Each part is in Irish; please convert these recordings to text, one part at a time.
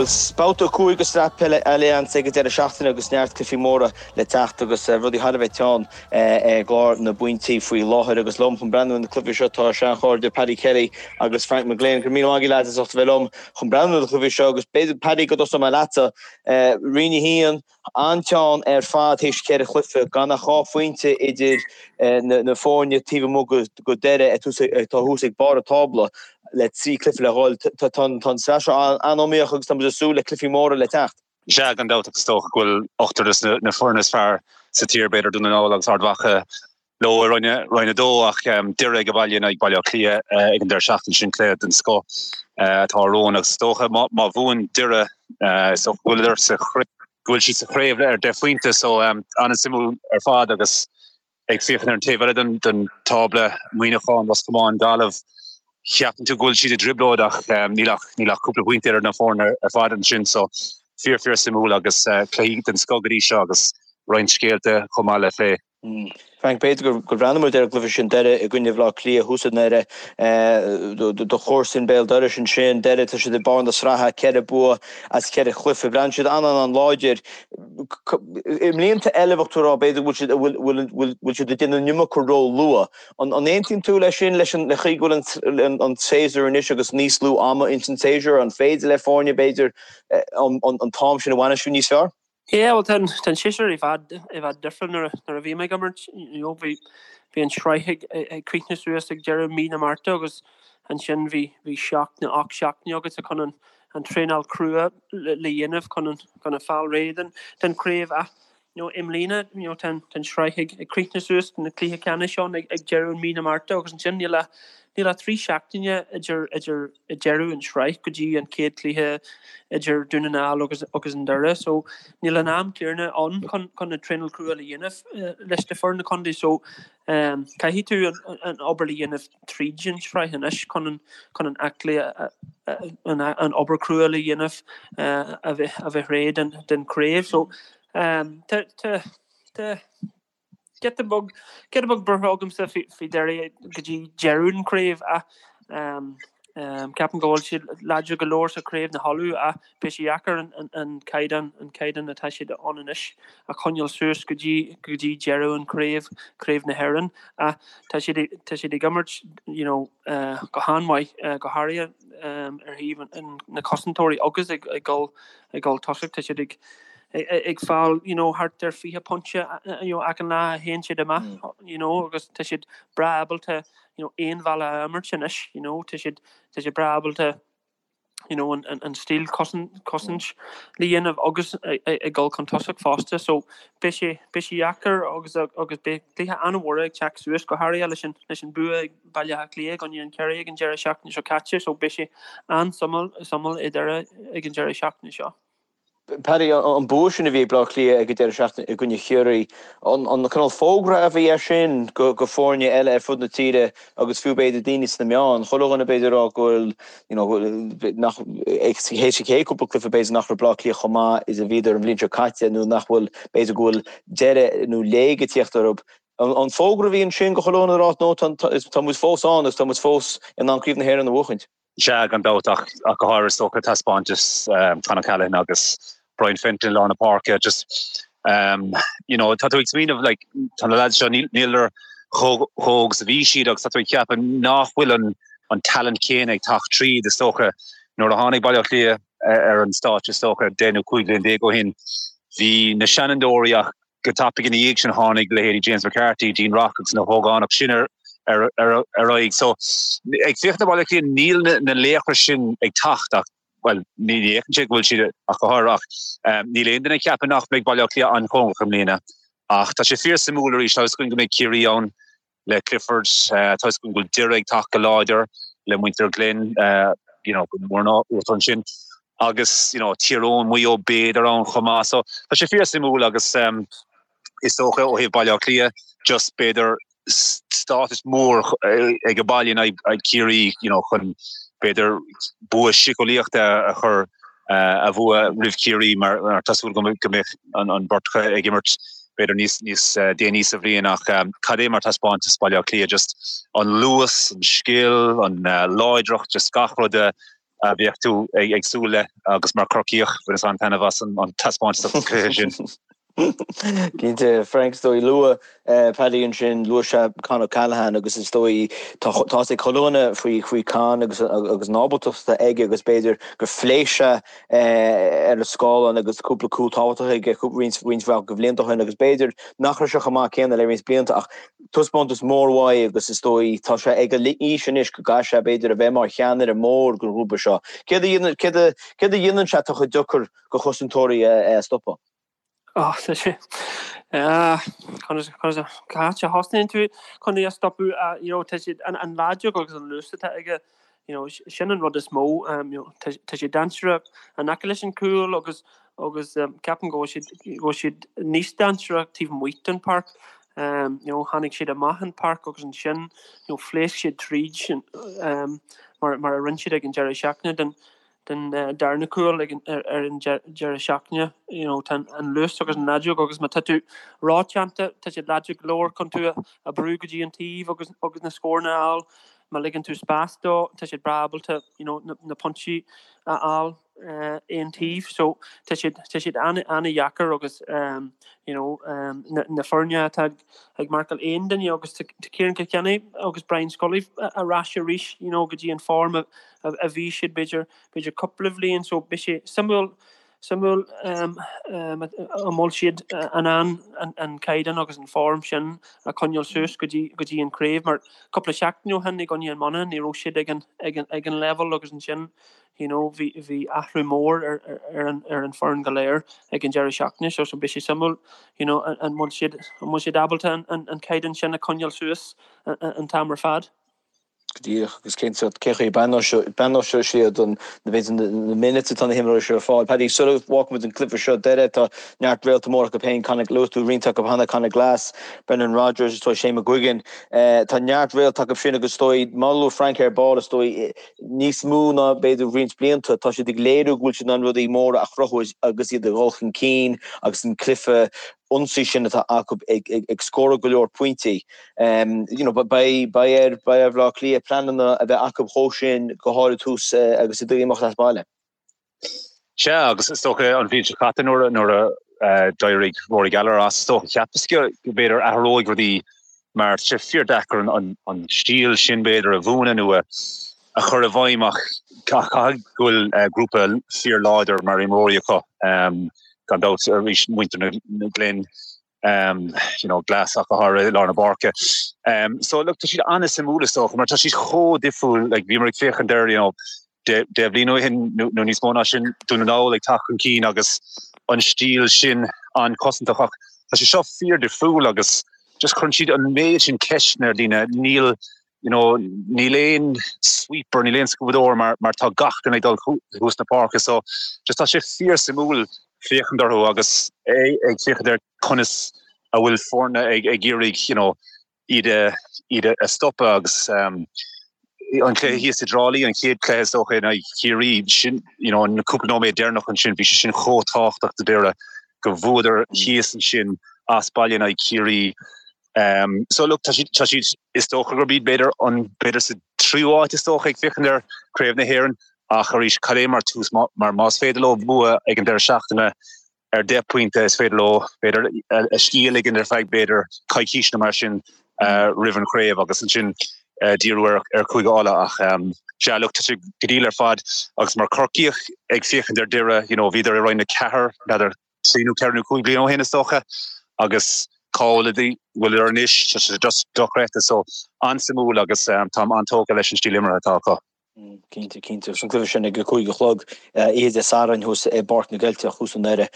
Bhuel, babhta 5 de Sraith Peile Allianz ag an deireadh seachtaine agus neart cluichí móra le teacht agus rudaí thar a bheith teann i gclár na bpointí faoi láthair agus liom chun breathnú ar na cluichí seo tá seanchairde Paddy Kelly agus Frank McGlynn. Go raibh míle maith agaibh lads as ucht a bheith liom chun breathnú ar na cluichí seo agus b'fhéidir Paddy go dtosóidh mé leatsa. Roinn 1, an-teann ar fad théis cheithre chluiche, gan ach 2 phointe idir na foirne taobh amuigh de Doire atá thuas ag barr an tábla le 3 cluiche le dhul. Tá an tsraith seo an-iomaíoch agus tá muid ag súil le cluichí móra le teacht. Sea, gan dabht, agus is dócha go bhfuil ochtar de na foirne is fearr sa tír, b'fhéidir Dún na nGall agus Ard Mhacha, leo i Roinn 2 ach Doire ag baile in aghaidh Baile Átha Cliath ag an deireadh seachtaine sin, cluiche den scoth atá romhainn agus is dócha má bhuann Doire is dócha go bhfuil sa go bhfuil siad sa chraobh ar 10 phointe so an-suimiúil ar fad agus ag féachaint ar an taobh eile den den tábla Muineachán, Ros Comáin, Gaillimh cheapann tú go bhfuil siad i dtrioblóid ach níl ach níl ach cúpla pointe idir na foirne ar fad ansin so fíor fíor suimiúil agus cluichí den scoth go dtí seo agus roinnt scéalta chomh maith le plé. Frank, b'fhéidir gur bhreathnaigh muid ar an gcluiche sin Doire i gcoinne Bhaile Átha Cliath thuas i nDoire, do chomharsain béal dorais ansin, Doire, tá siad ag barr na sraithe, ceithre bua as ceithre chluiche, breathnaíonn siad an-an-an-láidir. I mblianta eile bheadh tú ag rá b'fhéidir go bhfuil siad, bhfuil siad ag déanamh an iomarca ró-luath. An aontaíonn tú leis sin, leis an chaoi go bhfuil an séasúr anois agus níos lú ama ins an séasúr, an féidir le foirne b'fhéidir an t-am sin a bhainistiú níos fearr? Yeah, bhuel tá an tá an séasúr i bhfad i bhfad difriúil nuair a nuair a bhí mé ag imirt, you know, bhí bhí an sraith ag ag críochnú suas ag deireadh mí na Márta agus ansin bhí bhí seacht nó 8 seachtaine agatsa chun an an traenáil crua le le dhéanamh chun an chun a fáil réidh den den chraobh ach you know, i mbliana you know, tá an tá an sraith ag ag críochnú suas na cluiche ceannais ann ag ag deireadh mí na Márta agus ansin níl ach níl ach 3 seachtaine idir idir ag deireadh an sraith go dtí an chéad cluiche idir Dún na nGall agus agus an Doire so níl an am céanna ann chun chun na traenáil crua le dhéanamh leis na foirne contae so caithfidh tú an an obair le dhéanamh tríd an sraith anois chun an chun an aclaí an an obair crua le dhéanamh a bheith a bheith réidh den den craobh so tá tá tá Giota beag, giota beag buartha agamsa faoi Doire go dtí deireadh an chraobh ach ceapaim go bhfuil siad láidir go leor sa chraobh na hUladh ach beidh sé deacair an caighdeán, an caighdeán atá siad ann anois a choinneáil suas go dtí, go dtí deireadh an chraobh, craobh na hÉireann ach tá siad, tá siad ag imirt you know go han-mhaith go háirithe ar thaobh na cosantóirí agus ag dul, ag dul tosach tá siad ag ag fáil you know thart ar 20 pointe you know achan lá a théann siad amach you know agus tá siad breá ábalta you know aon bhealach a imirt anois you know tá siad tá siad breá ábalta you know an an stíl cosaint cosaint le dhéanamh agus ag dul chun tosach fosta so beidh sé beidh sé deacair agus agus beidh cluiche an-mhór ag teacht suas go háirithe leis an leis an bua ag Baile Átha Cliath i gcoinne an Chiarraí ag an deireadh seachtaine seo caite so beidh sé an-suimiúil suimiúil i nDoire ag an deireadh seachtaine seo. Paddy, an bua sin a bhí ag Bleá Cliath ag an deireadh seachtaine i gcoinne Chiarraí, an cineál fógra a bhí air sin go foirne eile ar fud na tíre agus fiú b'fhéidir daoine sna meáin, chuile dhuine b'fhéidir ag rá go bhfuil, you know, nach, théis an chéad cúpla cluiche b'fhéidir nach raibh Bleá Cliath chomh maith is a bhíodar an bhliain seo caite nó nach bhfuil, b'fhéidir go bhfuil deireadh nó léig ag tíocht orthu. An fógra a bhí ansin go chuile dhuine ag rá no tá muid fós ann agus tá muid fós in ann Craobh na hÉireann a bhuachaint? Sea, gan dabht, ach go háirithe is dócha taispeántas Con O'Callaghan agus Brian Fenton i lár na páirce. Just, you know, tá tú ag smaoineamh, like, tá na lads seo, níl chomh hóg is a bhí siad agus tá tú ag ceapadh nach bhfuil an an talent céanna ag teacht tríd, is dócha. Nuair a tháinig Baile Átha Cliath ar an stáitse, is dócha, 10 nó 15 bliain ó shin, bhí na seanfhondúirí ach Go tapaidh ina dhiaidh sin tháinig leithéidí James McCarthy, Dean Rock agus na hógánaigh sin ar aghaidh. So, ag féachaint ar Bhaile Átha Cliath, níl na laochra sin ag teacht ach, bhuel, ní fhéachann sé go bhfuil siad ach go háirithe ach níl aon duine ag ceapadh nach mbeidh Baile Átha Cliath an-chóngarach i mbliana. Ach tá sé fíor-suimiúil arís, tá a fhios againn go mbeidh Ciarraí ann le Clifford, tá a fhios againn go bhfuil Doire ag teacht go láidir le muintir Ghlinn, you know, go mór ná uachtar ansin agus, you know, Tír Eoghain, Maigh Eo b'fhéidir ann chomh maith. So tá sé fíor-suimiúil agus is dócha ó thaobh Baile Átha Cliath just b'fhéidir stádas mór ag an baile in aghaidh Ciarraí, you know, chun b'fhéidir bua síceolaíochta a chur a bhua roimh Chiarraí mar tá súil agam go mbeidh an bheirt acu ag imirt b'fhéidir níos níos déanaí sa bhliain ach cad é mar taispeántas Baile Átha Cliath, just an luas, an scil, an láidreacht, just gach rud a. a bheadh tú ag súil le agus mar Chorcaíoch bhaineas an-taitneamh as an taispeántas sa chluiche sin. Cinnte, Frank, is dóigh, luaigh Paddy ansin, luaigh sé Con O'Callaghan agus is dóigh tá a fhios ag chuile dhuine faoi faoi Con agus agus an ábaltacht atá aige agus b'fhéidir gur phléasc sé ar an scáileán agus cúpla cúl tábhachtach aige roinnt roinnt mhaith de bhlianta ó shin agus b'fhéidir nach raibh sé chomh maith céanna le roinnt blianta ach taispeántas mór uaidh agus is dóigh tá sé ag an aois anois go gcaithfidh sé b'fhéidir a bheith mar cheannaire mór den ghrúpa seo. Céard a dhéanann céard a céard a dhéanann sé atá chomh deacair do chosantóirí é a stopadh? Ó, tá sé conas conas cá háit a thosnaíonn tú chun é a stopadh you know tá siad an an láidreacht agus an luas atá aige you know sin an rud is mó you know tá tá sé dainséarach in aice leis an cúl agus agus ceapaim go bhfuil siad go bhfuil siad níos dainséarach taobh amuigh den pháirc you know tháinig siad amach an páirc agus ansin you know phléasc siad tríd mar mar a rinne siad ag an deireadh seachtaine den den darna cúl ag ar an deireadh seachtaine. You know tá an luas agus an láidreacht agus má tá tú rótheannta tá siad láidir go leor chun tú a brú go dtí an taobh agus agus na scóranna a fháil. Má ligeann tú spás dó tá siad breá ábalta you know na na pointí a fháil aon taobh. So tá siad tá siad an-an-dheacair agus you know na na foirne atá ag marcáil aon duine agus tá Ciarán Kilkenny agus Brian Scully ar ais arís you know go dtí an form a a bhí siad b'fhéidir b'fhéidir cúpla bhliain so beidh sé suimiúil suimiúil an bhfuil siad in ann an caighdeán agus an form sin a choinneáil suas go dtí go dtí an craobh mar cúpla seachtain ó shin i gcoinne an Monaghan ní raibh siad ag an ag an ag an level agus ansin you know bhí bhí athrú mór ar ar an ar an foireann go léir ag an deireadh seachtaine seo so beidh sé suimiúil you know an bhfuil siad an bhfuil siad ábalta an an an caighdeán sin a choinneáil suas an t-am ar fad. Go díreach, agus cén sórt, cén chaoi a breathnóidh siad an, b'fhéidir na minutes atá na himreoirí seo ar fáil. Paddy, sula bhfágfaidh muid an cluiche seo, Doire, tá neart réalta mór acu féin, Conor, luaigh tú roinnt acu cheana, Conor Glass, Brendan Rodgers, is dóigh Shane McGuigan. Tá neart réalta acu sin agus is dóigh, mar a luaigh Frank ar ball, is dóigh, níos mó ná b'fhéidir roinnt blianta, tá siad ag léiriú go bhfuil siad in ann rudaí móra a chruthú agus iad ag dul chun cinn agus an cluiche ionsaí sin atá acu ag scóráil go leor pointí. You know, beidh beidh ar beidh ar Bhaile Átha Cliath pleananna a bheith acu dhó sin go háirid tús agus iad ag imeacht as baile. Sea, agus is dócha an bhliain seo caite nuair nuair a d'éirigh Rory Gallagher as, is dócha cheapas go b'fhéidir athróidh rudaí mar tá sé fíor-deacair an an stíl sin b'fhéidir a mhúineadh nó a a chur i bhfeidhm ach caithfidh go bhfuil grúpa fíor-láidir mar imreoirí acu gan dabht arís muintir na Glen you know Glass ach go háirithe i lár na páirce. So look tá siad an-suimiúil is dócha mar tá siad chomh difriúil like bhíomar ag féachaint ar you know 10 bhliain ó shin nó níos mó ná sin Dún na nGall ag teacht chun cinn agus an stíl sin an-chosantach ach tá sé seo fíor-difriúil agus just cuireann siad an méid sin ceisteanna ar dhaoine níl you know, níl aon sweeper, níl aon scuabadóir mar, mar tá gach duine ag dul thuas na páirce so just tá sé fíor-suimiúil féachaint orthu agus ag féachaint ar conas a bhfuil foirne ag, ag iarraidh, you know, iad a, iad a stopadh agus um, an cluiche thíos i dTrá Lí, an chéad cluiche is dócha in aghaidh Chiarraí, sin, you know, an cúpla nóiméad deireanach ansin, bhí sé sin chomh tábhachtach do Doire go bhuadar thíos ansin as baile in aghaidh Chiarraí. So look, tá siad, tá siad, is dócha gurb iad b'fhéidir an, b'fhéidir sa tríú háit is dócha ag féachaint ar Craobh na hÉireann ach arís cad é mar tús mar más féidir leo bua ag an deireadh seachtaine ar 10 pointe is féidir leo b'fhéidir a scíth a ligean ar feadh b'fhéidir coicís nó mar sin roimh an chraobh agus ansin díriú ar ar Chúige Uladh ach sea look tá sé go diail ar fad agus mar Corcaíoch ag féachaint ar Doire you know bhíodar i Roinn 4 n'fheadar 3 nó 4 nó 5 bliain ó shin is dócha agus cá bhfuil bhfuileadar anois, tá sé just dochreidte so an-suimiúil agus táim an-tógtha leis an stíl imeartha atá acu. Cinnte, cinnte. Agus an cluiche sin ag a 5 a chlog oíche Dé Sathairn thuas i bPáirc na gCeilteach thuas i nDoire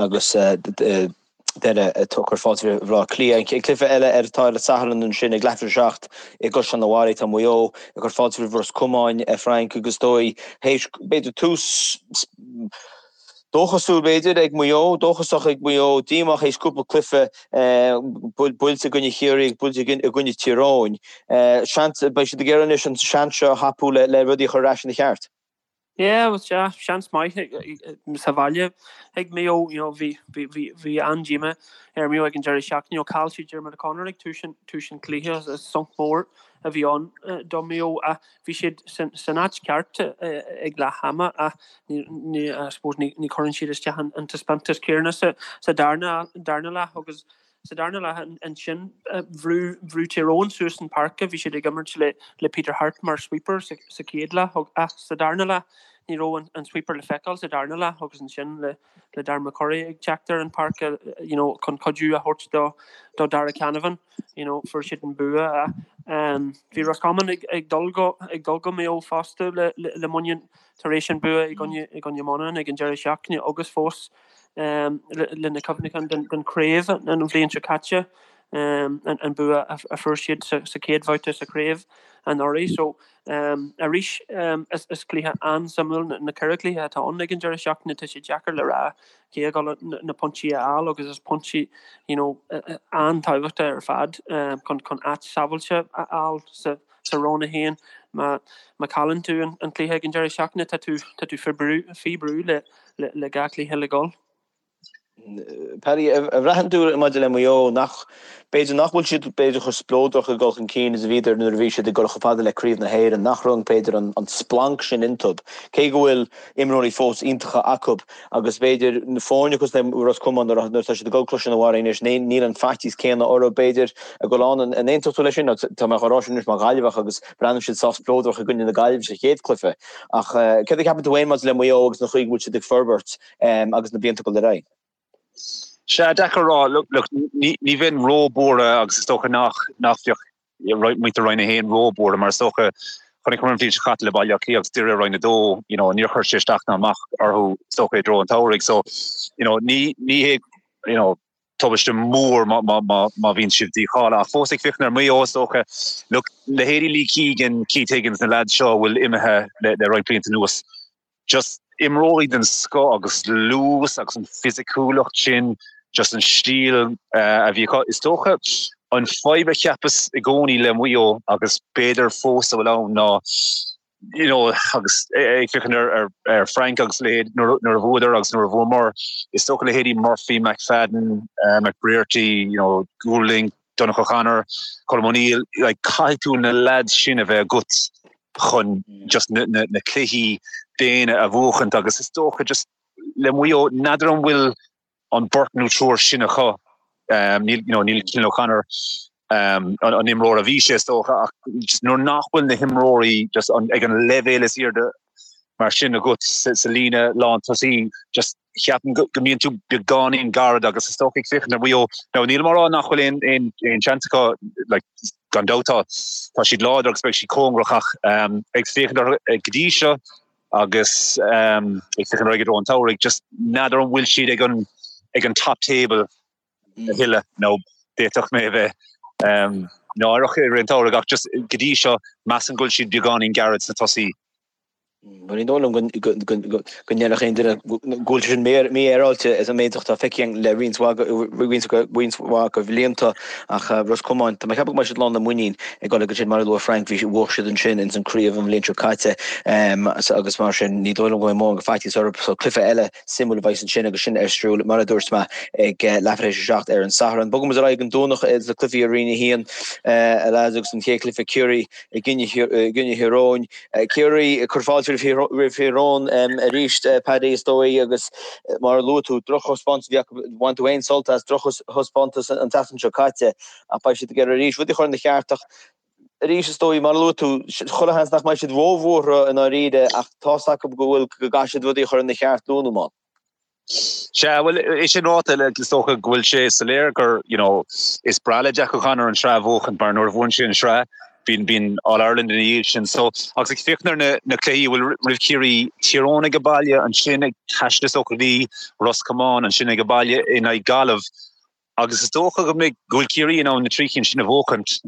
agus Doire ag cur fáilte roimh Bhaile Átha Cliath. An cluiche eile ar atá ar an Satharn ansin ag leathuair tar éis a 7 i gCaisleán an Bharraigh tá Maigh Eo ag cur fáilte roimh Ros Comáin, Frank agus is dóigh théis b'fhéidir tús Dóchasúil, b'fhéidir, ag Maigh Eo, dóchasach ag Maigh Eo, díomách théis cúpla cluiche, buailte i gcoinne Chiarraí agus buailte i gcoinne Tír Eoghain. Seans, beidh siad ag iarraidh anois an seans seo a thapú le rudaí a chur ar ais ina cheart. Yeah, well, sea, seans maith sa bhaile ag Maigh Eo, you know, bhí, bhí, bhí, bhí an-díomá ar Maigh Eo ag an deireadh seachtaine, you know, chaill siad Diarmuid O'Connor ag tús an, tús an chluiche, sonc mór. a bhí ann do Mhaigh Eo ach bhí siad san áit cheart ag leath ama ach ní, I suppose, ní chuireann siad isteach an taispeántas céanna sa darna leath agus sa darna leath ansin bhrú bhrú Tír Eoghain suas an páirc, bhí siad ag imirt le le Peter Harte mar sweeper sa sa chéad leath ach sa darna leath ní raibh an sweeper le feiceáil sa darna leath agus ansin le le Darren McCurry ag teacht ar an páirc you know chun cuidiú a thabhairt do do Darragh Canavan you know fuair siad an bua ach bhí Roscommon ag ag dul go ag dul go Maigh Eo fosta le le le muinín tar éis an bua i gcoinne i gcoinne Monaghan ag an deireadh seachtaine agus fós le na cuimhneacháin den chraobh an bhliain seo caite, an bua a fuair siad sa chéad bhabhta sa chraobh anuraidh. So arís is cluiche an-suimiúil na ceithre chluiche atá ann ag an deireadh seachtaine. Tá sé deacair le rá cé ag dul na pointí a fháil agus is pointí you know an-tábhachtach ar fad chun chun áit sábháilte a fháil sa sa Roinn 1. Má má chailleann tú an cluiche ag an deireadh seachtaine tá tú tá tú faoi brú faoi brú le le gach cluiche le dhul. Paddy, a bhraitheann tú maidir le Maigh Eo nach, b'fhéidir nach bhfuil siad b'fhéidir chomh spleodrach ag dul chun cinn is a bhíodar nuair a bhí siad ag dul chomh fada le Craobh na hÉireann, nach raibh b'fhéidir an splanc sin iontub, cé go bhfuil imreoirí fós iontacha acu agus b'fhéidir na foirne cosúil le Ros Comáin nuair atá siad ag dul Cluiche an Bharraigh anois níl an faitíos céanna orthu b'fhéidir ag dul ann. An aontódh tú leis sin? Tá mé á rá sin anois mar Ghaillimheach agus breathnaíonn siad sách spleodrach i gcoinne na Gaillimhe sa chéad chluiche. Ach céard a cheapann tú féin maidir le Maigh Eo agus an chaoi go bhfuil siad ag forbairt agus na blianta ag dul ar aghaidh? Sea, deacair a rá. Look, ní bheinn ró-buartha agus is dócha nach bheadh muintir Roinn 1 ró-buartha mar is dócha chonaiceamar an bhliain seo caite le Baile Átha Cliath agus Doire i Roinn 2, you know, níor chuir sé isteach ná amach orthu is dócha i dtreo an tsamhraidh. So, you know, ní ní hé, you know, tubaiste mór má má má má bhíonn siad dícháilithe. Ach fós ag féachaint ar Maigh Eo is dócha, look, leithéidí Lee Keegan, Keith Higgins, na lads seo a bhfuil imithe le le roinnt blianta anuas, just imreoirí den scoth agus luas agus an fisiciúlacht sin, just an stíl a bhí acu. Is dócha an fadhb a cheapas i gcónaí le Maigh Eo agus b'fhéidir fós a bhfuil ann ná you know agus ag féachaint ar ar ar Frank agus leithéid nuair nuair a bhuadar agus nuair a bhuamar, is dócha leithéidí Murphy, McFadden, McBrearty, you know, Goulding, Donncha O'Connor, Colm O'Neill, like caithfidh tú na lads sin a bheith agat chun just na na na cluichí daonna a bhuachaint agus is dócha just le Maigh Eo n'fheadar an bhfuil an beirt nó triúr sin acu níl you know níl Cillian O'Connor um, an, an imreoir a bhí sé is dócha ach just nuair nach bhfuil na himreoirí just an, ag an leibhéal is airde mar sin agat sa, sa líne lán tosaí just cheapaim go mbíonn tú beagáinín gairid agus is dócha ag féachaint ar Mhaigh Eo. Now nílim á rá nach bhfuil aon aon aon seans acu like gan dabht tá tá siad láidir agus beidh siad cóngarach ach ag féachaint orthu go dtí seo agus ag féachaint ar aghaidh i dtreo an tsamhraidh just n'fheadar an bhfuil siad ag an ag an top table a thuilleadh nó d'fhéadfadh mé a bheith náireach i rith an tsamhraidh ach just go dtí seo measaim go bhfuil siad beagáinín gairid sna tosaí. Bhuel, ní dóigh liom go ndéarfadh aon duine go bhfuil sé sin mífhéaráilte as an méid atá feicthe againn le roinnt mhaith de bhlianta ach Ros Comáin, tá mé ag ceapadh go mbeidh siad lán le muinín ag dul go sin mar a luaigh Frank, bhí bhuaigh siad ansin ins an craobh an bhliain seo caite agus mar sin ní dóigh liom go mbeidh mórán de faitíos orthu. So cluiche eile suimiúil a bheas ansin agus sin ar siúl mar a dúirt mé ag leathuair tar éis a 7 ar an Satharn. Bogfaidh muid ar aghaidh an Domhnach le cluichí i Roinn 1 a lads agus an chéad chluiche Ciarraí i gcoinne Thír Eoghain. Ciarraí ag cur fáilte roimh Thír Eoghain arís, Paddy, is dóigh, agus mar a luaigh tú, drochthaispeántas a bhí acu, bhain tú féin sult as drochthaispeántas an tseachtain seo caite ach beidh siad ag iarraidh arís rudaí a chur ina cheart ach arís, is dóigh, mar a luaigh tú, chuile sheans nach mbeidh siad róbhuartha i ndáiríre ach tá's acu go bhfuil, go gcaithfidh siad rudaí a chur ina cheart luath nó mall. Sea, bhuel, é sin ráite, is dócha go bhfuil sé soiléir gur, you know, is breá le Jack O'Connor an tsraith a bhuachaint mar nuair a bhuann sé an tsraith, bíonn, bíonn All Ireland ina dhiaidh sin. So, agus ag féachaint ar na, na cluichí a bhfuil roimh Chiarraí, Tír Eoghain age baile, ansin ag taisteal is dócha go dtí Ros Comáin, ansin age baile in aghaidh Gaillimh. Agus is dócha go mbeidh, go bhfuil Ciarraí in ann na trí cinn sin a bhuachaint.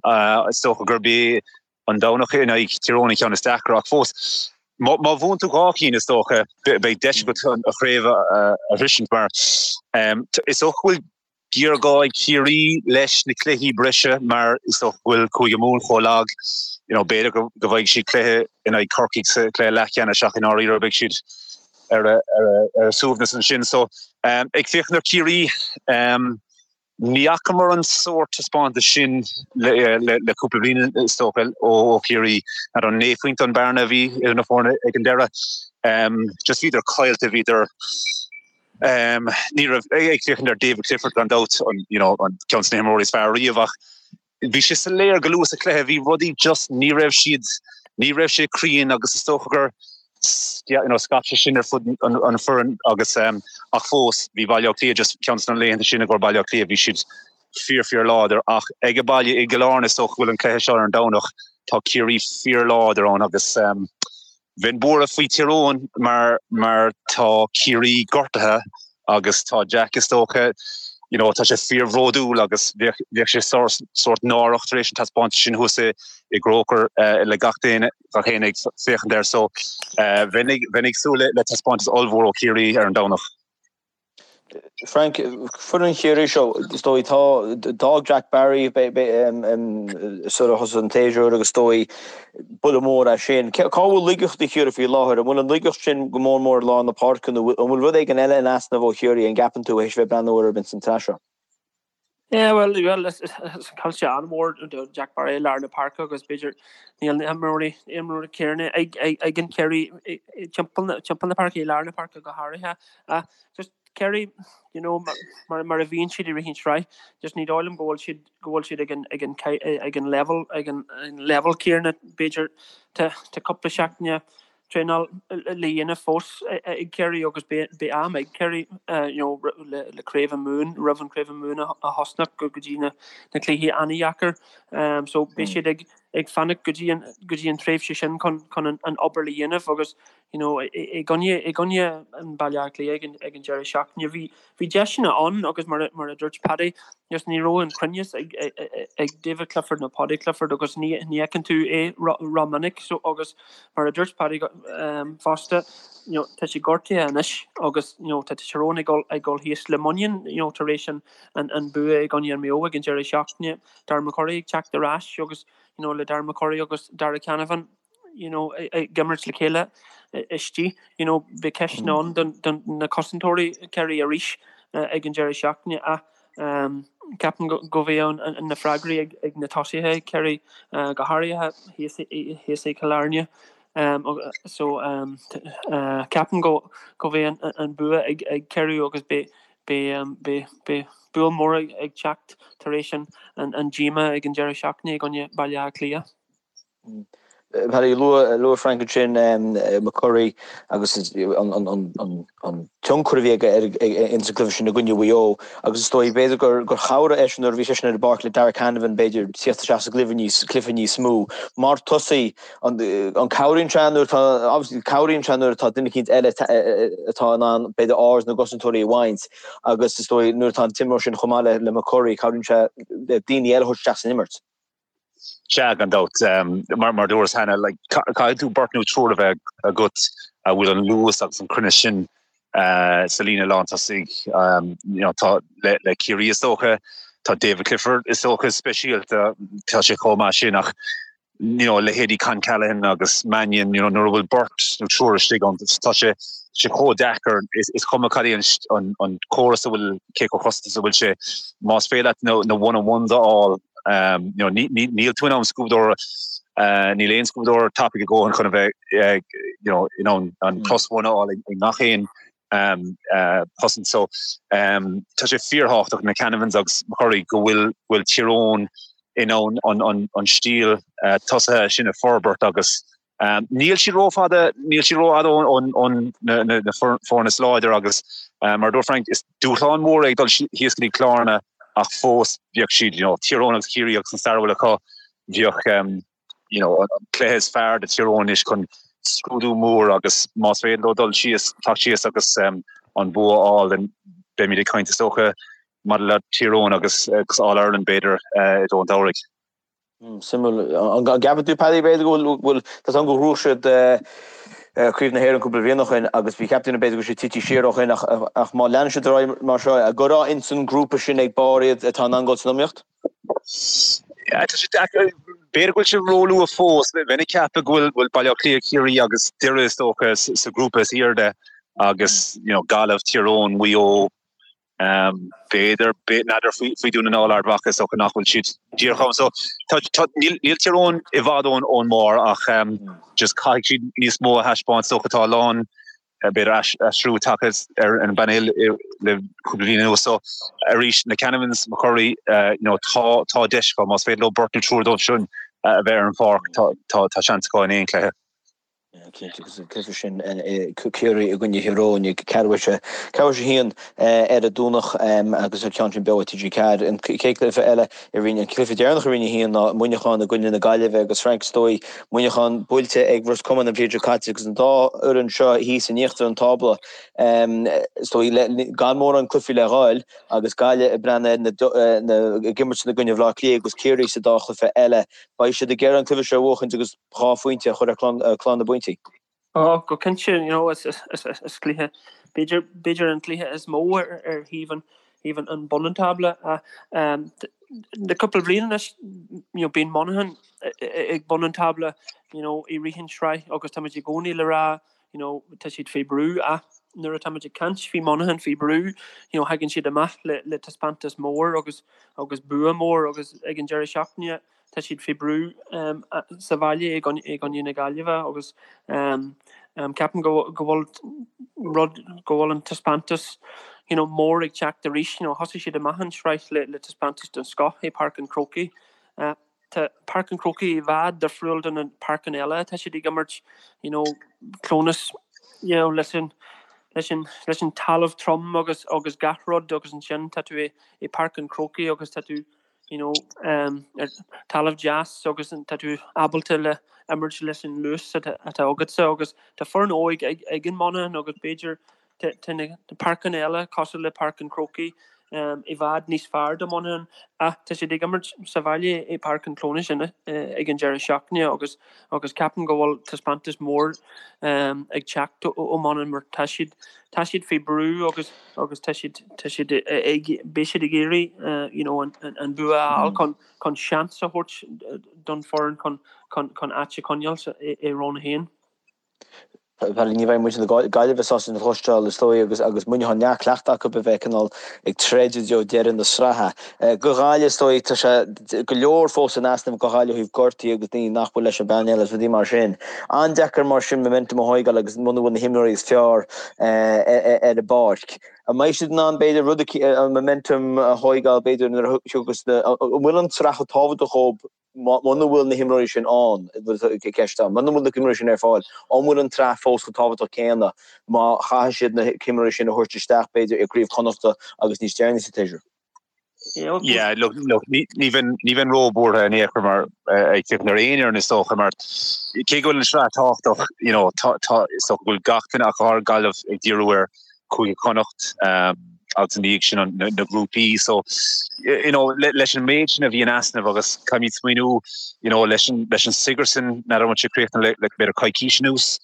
Is dócha gurb é an Domhnach in aghaidh Tír Eoghain an ceann is deacra ach fós, má bhuann tú dhá chinn is dócha beidh deis agat an chraobh a shroisint mar is dócha go bhfuil géarghá ag Ciarraí leis na cluichí breise mar is dócha go bhfuil Cúige Mumhan chomh lag. You know, b'fhéidir go bhfaighidh siad cluiche in aghaidh Corcaigh sa chluiche leathcheannais ach i ndáiríre beidh siad ar a suaimhneas ansin. So ag féachaint ar Chiarraí. Ní fhacamar an sórt taispeántas sin le cúpla bliain is dócha ó Chiarraí. N'fheadar an 9 phointe an bearna a bhí idir na foirne ag an deireadh. Just bhíodar caillte, bhíodar ní raibh ag féachaint ar David Clifford gan dabht an you know an ceann de na himreoirí is fearr riamh ach bhí sé soiléir go luath sa chluiche bhí rudaí just ní raibh siad ní raibh sé cruinn agus is dócha gur you know, scaip sé sin ar fud an foireann agus ach fós bhí Baile Átha Cliath just ceann de na laethanta sin i gcomhair Baile Átha Cliath bhí siad fíor fíor láidir ach ag a baile i gCill Airne is dócha go bhfuil an cluiche seo ar an Domhnach tá Ciarraí fíor láidir ann agus Bheinn buartha faoi Tír Eoghain mar mar tá Ciarraí gortaithe agus tá Jack is dócha you know tá sé fíorbhródúil agus bheadh bheadh sé sórt sórt náireach tar éis an taispeántas sin thuas i i gCroker le gach duine gach éinne ag féachaint air so bheinn ag bheinn ag súil le le taispeántas ollmhór ó Chiarraí ar an Domhnach. Frank, foireann Chiarraí seo, is dóigh, tá, d'fhág Jack Barry sula thosaigh an tséasúr agus is dóigh buille mór é sin. Cá bhfuil laigeachtaí Chiarraí faoi láthair? An bhfuil an laigeacht sin go mór mór i lár na páirce nó an bhfuil rud éigin eile in easnamh ó Chiarraí, an gceapann tú, théis bheith ag breathnú orthu ins an tsraith seo? Yeah, well, well, is caillte an-mhór do Jack Barry i lár na páirce agus b'fhéidir níl na himreoirí imreoirí céanna ag ag ag an Ciarraí timpeall na timpeall na páirce i lár na páirce go háirithe. Ach just Ciarraí, you know, mar mar a bhíonn siad i rith an tsraith, just ní dóigh liom go bhfuil siad go bhfuil siad ag an ag an ag an level ag an level céanna b'fhéidir tá tá cúpla seachtaine traenáil le dhéanamh fós ag Ciarraí agus beidh am ag Ciarraí you know le Craobh na Mumhan, roimh an Craobh na Mumhan a thosnach go dtí na cluichí an-dheacair. So beidh siad ag ag fanacht go dtí an go dtí an tréimhse sin chun chun an obair le dhéanamh agus you know i gcoinne i gcoinne an Baile Átha Cliath ag an ag an deireadh seachtaine bhí Bhí deiseanna ann agus mar a dúirt Paddy, just ní raibh an cruinneas ag David Clifford nó Paudie Clifford agus ní fheiceann tú é ró-mhinic so agus mar a dúirt Paddy fosta, you know, tá sé gortaithe anois agus you know, tá Tyrone ag dul ag dul thíos le muinín you know, tar éis an an bua i gcoinne an Mayo ag an deireadh seachtaine, Darren McCurry ag teacht ar ais agus you know, le Darren McCurry agus Darragh Canavan. you know, ag imirt le chéile istigh, you know, beidh ceisteanna ann don, don na cosantóirí Ciarraí arís ag an deireadh seachtaine ach ceapaim go, go mbeidh an, an, na freagraí ag, ag na tosaithe Ciarraí go háirithe thíos, thíos i gCill Airne. So ceapaim go, go mbeidh an, an bua ag, ag Ciarraí agus beidh, beidh, beidh, beidh buille mór ag, ag teacht tar éis an, an, an díomá ag an deireadh seachtaine i gcoinne Baile Átha Cliath. Paddy, luaigh Frank ansin McCurry agus an tionchar a bhí aige ins an gcluiche sin i gcoinne Mhaigh Eo agus is dóigh b'fhéidir gur chabhraigh eisean nuair a bhí seisean ar an bpáirc le Darragh Canavan b'fhéidir tíocht isteach sa gcluiche níos cluiche níos mó. Mar tosaí, an cabhraíonn sé nuair atá obviously cabhraíonn sé nuair atá duine eicínt eile atá in ann b'fhéidir aird na gcosantóirí a bhaint agus is dóigh nuair atá an t-imreoir sin chomh maith le McCurry cabhraíonn sé le daoine eile a thabhairt isteach san imirt. Sea, gan dabht. Mar mar dúras cheana, like, caithfidh tú beirt nó triúr a bheith agat a bhfuil an luas agus an cruinneas sin sa líne lántosaigh. You know, tá le le Ciarraí is dócha, tá David Clifford is dócha speisialta, tá sé chomh maith sin ach you know, leithéidí Con Callaghan agus Mannion, you know, nuair a bhfuil beirt nó triúr istigh ann, tá sé sé chomh deacair, is cuma cad é an an córas a bhfuil, cé chomh cosanta is a bhfuil sé, más féidir leat na na one on ones a fháil, You know, níl tú in ann scuabadóir, níl aon scuabadóir tapaidh a dhóthain chun a bheith you know, in ann an plus one a fháil i ngach aon chosaint. So tá sé fíorthábhachtach na Canavans agus McCurry go bhfuil bhfuil Tír Eoghain in ann an an stíl tosaithe sin a forbairt agus Níl siad rófhada, níl siad rófhada ó na foirne is láidir agus mar a dúirt Frank, is dúshlán mór é ag dul thíos go dtí Cill Airne ach fós bheadh siad, you know, Tír Eoghain agus Ciarraí agus an stair a bhfuil acu, bheadh, you know, an cluiche is fearr do Thír Eoghain anois chun scrúdú mór agus más féidir leo dul síos, teacht síos agus an bua a fháil, then beimid ag caint is dócha maidir le Tír Eoghain agus All Ireland b'fhéidir i dtreo an tsamhraidh. Suimiúil. An gceapann tú, Paddy, b'fhéidir go bhfuil, tá a fhios agam gur ghnóthaigh siad Craobh na hÉireann cúpla bliain ó shin agus bhí cheap daoine b'fhéidir go bhfuil siad tite siar ó shin ach má leanann siad ar aghaidh mar seo, an gcuirfeá ins an ngrúpa sin ag barr iad atá in ann dul san iomaíocht? Tá sé deacair, b'fhéidir go bhfuil sé róluath fós. Bheinn ag ceapadh go bhfuil Baile Átha Cliath, Ciarraí agus Doire is dócha sa ghrúpa is airde agus you know Gaillimh, Tír Eoghain, Maigh Eo. B'fhéidir, n'fheadar faoi Dún na nGall, Ard Mhacha, is dócha nach bhfuil siad díreach ann. So tá, tá, níl, níl Tír Eoghain i bhfad ón, ón mbarr ach just caithfidh siad níos mó a thaispeáint. Is dócha tá a lán, b'fhéidir aistriú tagtha ar an bpainéal le cúpla bliain anuas. So arís, na Canavans, McCurry, you know, tá, tá deis acu. Más féidir leo beirt nó triúr dóibh sin a bheith ar an pháirc, tá, tá, tá seans acu in aon chluiche. Cinnte, agus an cluiche sin Ciarraí i gcoinne Thír Eoghain ag ceathrú tar éis a haon ar an Domhnach agus an ceann sin beo ar TG4. An chéad chluiche eile i Roinn, an cluiche deireanach i Roinn 1 ná Muineachán i gcoinne na Gaillimhe agus Frank is dóigh Muineachán buailte ag Ros Comáin an bhliain seo caite agus an dá fhoireann seo thíos in íochtar an tábla is dóigh gan mórán cluichí le ghabháil agus Gaillimh ag breathnú ar na ag imirt i gcoinne Bhaile Átha Cliath agus Ciarraí sa dá chluiche eile. Beidh siad ag iarraidh an cluiche seo a bhuachaint agus 2 phointe a chur ar chlár na bpointí. Ó, go cinnte, you know, is cluiche, b'fhéidir, b'fhéidir an cluiche is mó ar ar thaobh an, thaobh an, an bun an tábla. Le cúpla bliain anois, you know, bíonn Monaghan ag bun an tábla, you know, i rith an sraith agus táimid i gcónaí le rá, you know, tá siad faoi brú ach nuair atáimid ag caint faoi Monaghan faoi brú, you know, thagann siad amach le, le taispeántas mór agus, agus bua mór agus ag an deireadh seachtaine, Tá siad faoi brú sa bhaile i gcoinne na Gaillimhe agus ceapaim go bhfuil rud, go bhfuil an taispeántas you know mór ag teacht arís. You know thosaigh siad amach an tsraith le le taispeántas den scoth i Páirc an Chrócaigh. Tá Páirc an Chrócaigh i bhfad difriúil do na páirceanna eile atá siad ag imirt you know Clónas you know leis an leis an leis an talamh trom agus agus gach rud agus ansin tá tú i i Páirc an Chrócaigh agus tá tú you know, ar talamh deas agus tá tú ábalta le imirt leis an luas atá agatsa agus tá foireann óig ag an Monaghan agus b'fhéidir tá na páirceanna eile cosúil le Páirc an Chrócaigh i bhfad níos fearr do Monaghan ach tá siad ag imirt sa bhaile i Páirc an Chlónais ag an deireadh seachtaine agus agus ceapaim go bhfuil taispeántas mór ag teacht ó Monaghan mar tá siad tá siad faoi brú agus agus tá siad, tá siad ag, beidh siad ag iarraidh you know an, an bua a fháil chun, chun seans a thabhairt don foireann chun, chun, chun áit a choinneáil sa, i, i Roinn 1. Bhuel, ní bheidh muintir na Gaillimhe sásta sin a chloisteáil, is dóigh, agus, agus Muineachán neart cleachta acu a bheith cineál ag troid i dtreo deireadh na sraithe. Do Ghaillimh, is dóigh, tá sé go leor fós in easnamh do Ghaillimh ó thaobh gortaithe agus daoine nach bhfuil leis an bpainéal agus rudaí mar sin. An-deacair mar sin momentum a thóigeáil agus muna bhfuil na himreoirí is fearr ar an bpáirc. An mbeidh siad in ann, b'fhéidir, rud an momentum a thóigeáil, b'fhéidir, nuair a thiocfas na, an bhfuil an tsraith chomh tábhachtach dhóibh muna bhfuil na himreoirí sin ann, ceist ann, muna bhfuil na himreoirí sin ar fáil, an bhfuil an tsraith fós chomh tábhachtach céanna má chaithfidh siad na himreoirí sin a thabhairt isteach, b'fhéidir, i gCraobh Chonnachta agus níos deireanaí sa tséasúr? Yeah, look, look, ní ní bheinn ní bheinn róbhuartha in aon chor mar ag féachaint ar aon fhoireann is dócha mar cé go bhfuil an sraith tábhachtach, you know, tá tá is dócha go bhfuil gach duine ach go háirithe Gaillimh ag díriú ar Chúige Chonnacht um, agus ina dhiaidh sin an, na, na grúpaí so you know, le, leis an méid sin a bhí in easnamh agus caithfimid smaoineamh you know, leis an, leis an Sigerson n'fheadar an bhfuil sé críochnaithe le, le b'fhéidir coicís anuas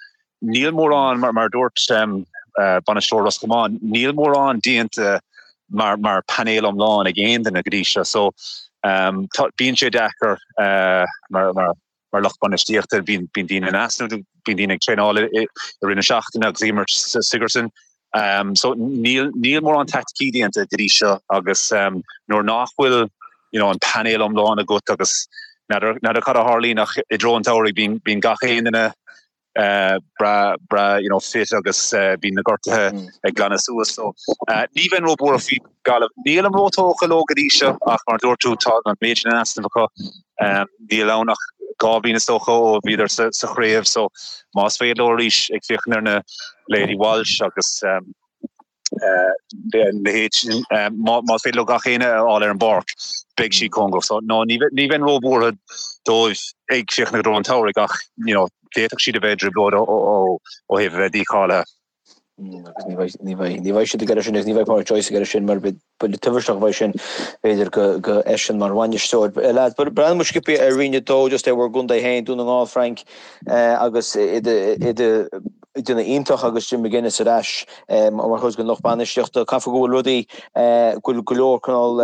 Níl mórán, mar a dúirt bainisteoir Ros Comáin, níl mórán déanta mar mar painéal iomlán ag aon duine go dtí seo. So tá, bíonn sé deacair mar mar mar lucht bainistíochta, bíonn bíonn daoine in easnamh, bíonn daoine ag traenáil i rith na seachtaine agus ag imirt sa Sigerson. So níl níl mórán taicticí déanta go dtí seo agus nuair nach bhfuil you know an painéal iomlán agat agus n'fheadar n'fheadar cad a tharlaíonn ach i dtreo an tsamhraidh bíonn bíonn gach aon duine breá breá you know fit agus bíonn na gortuithe ag glanadh suas so ní bheinn róbhuartha faoi Gaillimh. Nílim róthógtha leo go dtí seo ach mar a dúirt tú tá an méid sin in easnamh acu. Níl ann ach 2 bhliain is dócha ó bhíodar sa sa chraobh so más féidir leo arís ag féachaint ar na leithéidí Walsh agus leithéid sin, más féidir leo gach éinne a fháil ar an bpáirc, beidh siad cóngarach. So, no, ní bheinn róbhuartha dóibh ag féachaint i dtreo an tsamhraidh ach, you know, d'fhéadfadh siad a bheith i dtrioblóid ó thaobh a bheith dícháilithe. Agus ní bheidh, ní bheidh, ní bheidh siad ag iarraidh sin agus ní bheidh Pádraic Joyce ag iarraidh sin mar buille tubaisteach a bheidh sin, b'fhéidir, do eisean mar bhainisteoir. Lads, breathnóidh muid sciobtha ar Roinn 2 just ar bhur gcontae féin, Dún na nGall, Frank, agus i do, i do. Ag déanamh iontach agus Jim McGuinness ar ais mar chuid den lucht bainistíochta. Caithfidh go bhfuil rudaí, go bhfuil go leor cineál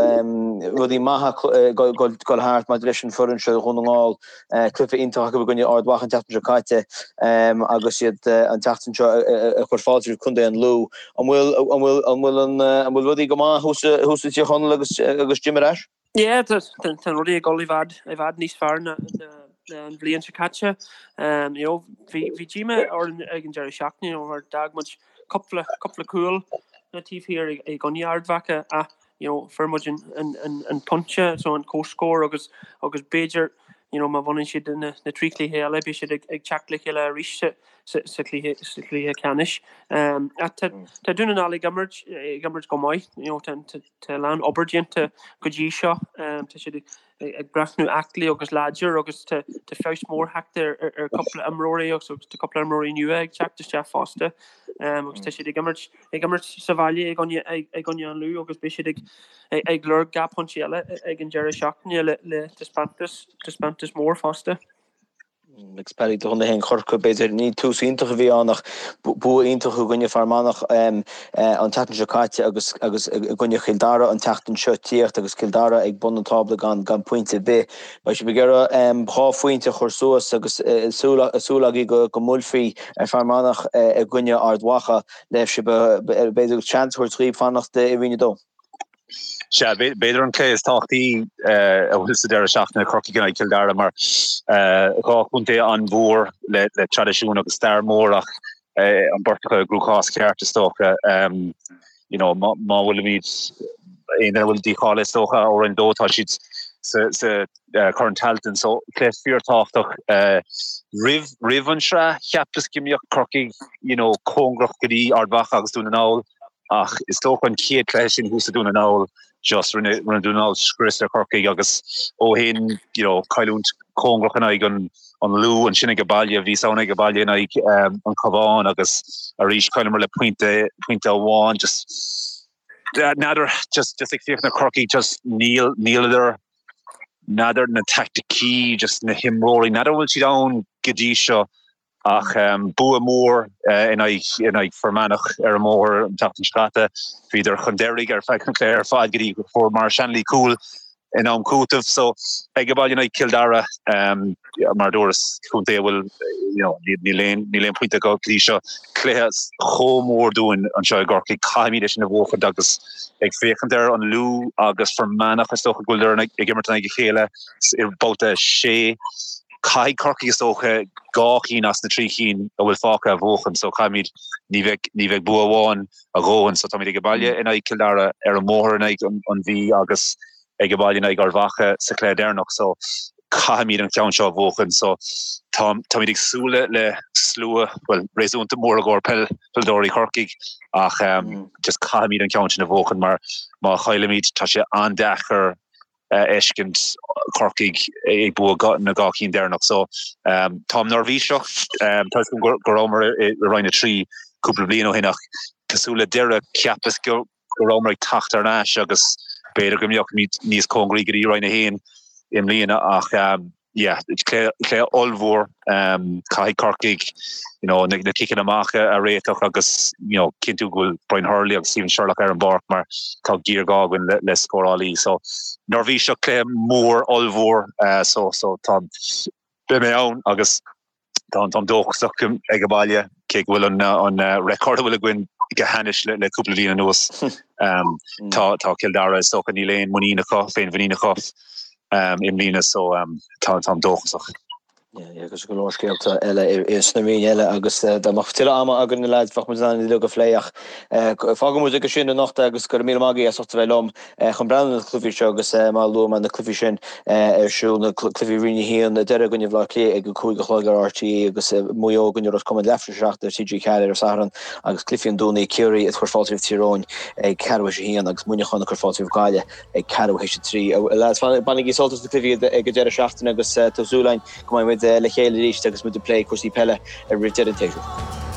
rudaí maithe ag dul thart maidir leis an foireann seo Dhún na nGall. Cluiche iontach acu i gcoinne Ard Mhacha an tseachtain seo caite agus iad an tseachtain seo ag cur fáilte roimh Contae an Lú. An bhfuil, an bhfuil, an bhfuil an, an bhfuil rudaí go maith thuas, thuas i dTír Chonaill agus, agus Jim ar ais? Yeah, tá rudaí ag dul i bhfad, i bhfad níos fearr ná an bhliain seo caite. You know, bhí, bhí díomá orainn ag an deireadh seachtaine, you know, mar d'fhág muid cúpla, cúpla cúl na taobh thiar i gcoinne Ard Mhacha ach, you know, fuair muid an, an, an, an pointe, so an comhscór agus, agus b'fhéidir, you know, má bhaineann siad na, na trí chluiche eile, beidh siad ag, ag teacht le chéile arís sa, sa, sa chluiche, sa chluiche ceannais. Ach tá, tá Dún na nGall ag imirt, ag imirt go maith, you know, tá, tá, Tá a lán obair déanta go dtí seo. Tá siad ag breathnú aclaí agus láidir agus tá feabhas mór tagtha ar cúpla imreoirí agus tá cúpla imreoirí nua ag teacht isteach fosta. Agus tá siad ag imirt ag imirt sa bhaile i gcoinne i gcoinne an Lú agus beidh siad ag ag lorg 2 pointe eile ag an deireadh seachtaine le le taispeántas taispeántas mór fosta. Agus Paddy do chontae féin Chorcaí, b'fhéidir, ní tús iontach a bhí ann ach bua iontach i gcoinne Fear Manach an tseachtain seo caite agus agus i gcoinne Chill Dara an tseachtain seo tíocht agus Cill Dara ag bun an tábla gan gan pointe ar bith. Beidh sibh ag iarraidh 2 phointe a chur suas agus súil súil agaibh go go mbuailfí ar Fear Manach i gcoinne Ard Mhacha le sibh b'fhéidir seans a thabhairt dhaoibh fanacht i Roinn 2. Sea, b'fhéidir an cluiche is tábhachtaí a bhfuil sa deireadh seachtaine, Corcaigh in aghaidh Chill Dara, mar 2 chontae an-mhór le traidisiún agus stair mhór ach an bheirt acu i gcruachás ceart is dócha. You know, má bhfuilimid, aon duine a bhfuil dícháilithe is dócha ó Roinn 2, tá siad sa Corn Tailteann. So cluiche fíorthábhachtach. Roimh roimh an sraith, cheapas go mbeadh Corcaigh, you know, cóngarach go dtí Ard Mhacha agus Dún na nGall. Ach is dócha an chéad chluiche sin thuas i Dún na nGall, just rinne rinne Dún na nGall scrios ar Chorcaigh agus ó shin, you know, cailliúint cóngarach in aghaidh an an Lú, ansin age baile, bhí ann age baile in aghaidh an Cabhán agus arís chailleamar le pointe pointe amháin, just n'fheadar, just just ag féachaint ar Chorcaigh, just níl níleadar n'fheadar na taicticí, just na himreoirí, n'fheadar an bhfuil siad ann go dtí seo. Ach bua mór in aghaidh Fear Manach ar an mbóthar an tseachtain seo caite. Bhíodar chun deiridh ar feadh an chluiche ar fad go dtí go bhfuair Maurice Shanley cúl in am cúitimh. So ag baile in aghaidh Cill Dara, mar a dúras, contae a bhfuil you know níl aon níl aon pointe acu go dtí seo. Cluiche chomh mór dúinn anseo i gCorcaigh. Caithfimid é sin a bhuachaint agus ag féachaint ar an Lú agus Fear Manach is dócha go bhfuileadar ag imirt in aghaidh a chéile i mbabhta 6. Caithfidh Corcaigh is dócha 2 chinn as na 3 chinn a bhfuil fágtha a bhuachan so caithfimid, ní bheidh, ní bheidh bua amháin a dhóthain so táimid age baile in aghaidh Cill Dara, ar an mbóthar in aghaidh an Mhí agus age baile in aghaidh Ard Mhacha sa chluiche deireanach so caithfimid an ceann seo a bhuachan so tá, táimid ag súil le, le slua, bhuel réasúnta mór i gcomhair peil, peileadóirí Chorcaigh ach just caithfimid an ceann sin a bhuachan mar má chaillimid tá sé an-deacair a fheiscint Corcaigh ag buachan na 2 cinn deireanach. So táim neirbhíseach. Tá fhios agam go rabhamar i Roinn 3 cúpla bliain ó shin ach cosúil le Doire cheapas go rabhamar ag teacht thar n-ais agus b'fhéidir go mbeadh níos cóngaraí go dtí Roinn 1 i mbliana ach yeah, cluiche ollmhór, caithfidh Corcaigh you know, na, na ciceanna amach a, a réiteach agus you know, cinntiú go bhfuil Brian Hurley agus Stephen Sherlock ar an bpáirc mar tá géarghá againn le, le scórálaí. So neirbhíseach cluiche mór ollmhór uh, so, so tá beidh mé ann agus Táim dóchasach ag an baile, cé go bhfuil an record a bhfuil againn go hainnis le cúpla bliain anuas. Tá Cill Dara, is dócha, níl aon muinín acu, féinmhuinín acu i mbliana so táim dóchasach. Agus go leor scéalta eile sna roinn eile agus dá mbeadh tuilleadh ama againn na leaids bheadh muid in ann uilig a phlé ach fágfaidh muid aige sin anocht agus go raibh míle maith agaibh as ucht a bheith liom. Chun breathnú ar na cluichí seo agus mar a luaigh mé na cluichí sin ar siúl, na cluichí Roinn 1, Doire i gcoinne Bhaile Átha Cliath ag a 5 a chlog ar RTÉ agus Maigh Eo i gcoinne Ros Comáin leathuair tar éis a 7 ar TG4 ar an Satharn agus cluichí an Domhnaigh, Ciarraí ag cur fáilte roimh Tír Eoghain ag ceathrú théis a haon agus Muineachán ag cur fáilte roimh Gaillimh ag ceathrú théis a 3. A lads, bainigí sult as na cluichí ag an deireadh seachtaine agus tá súil againn go mbeidh muid le chéile arís agus muid ag plé cúrsaí peile roimh deireadh an tséasúir.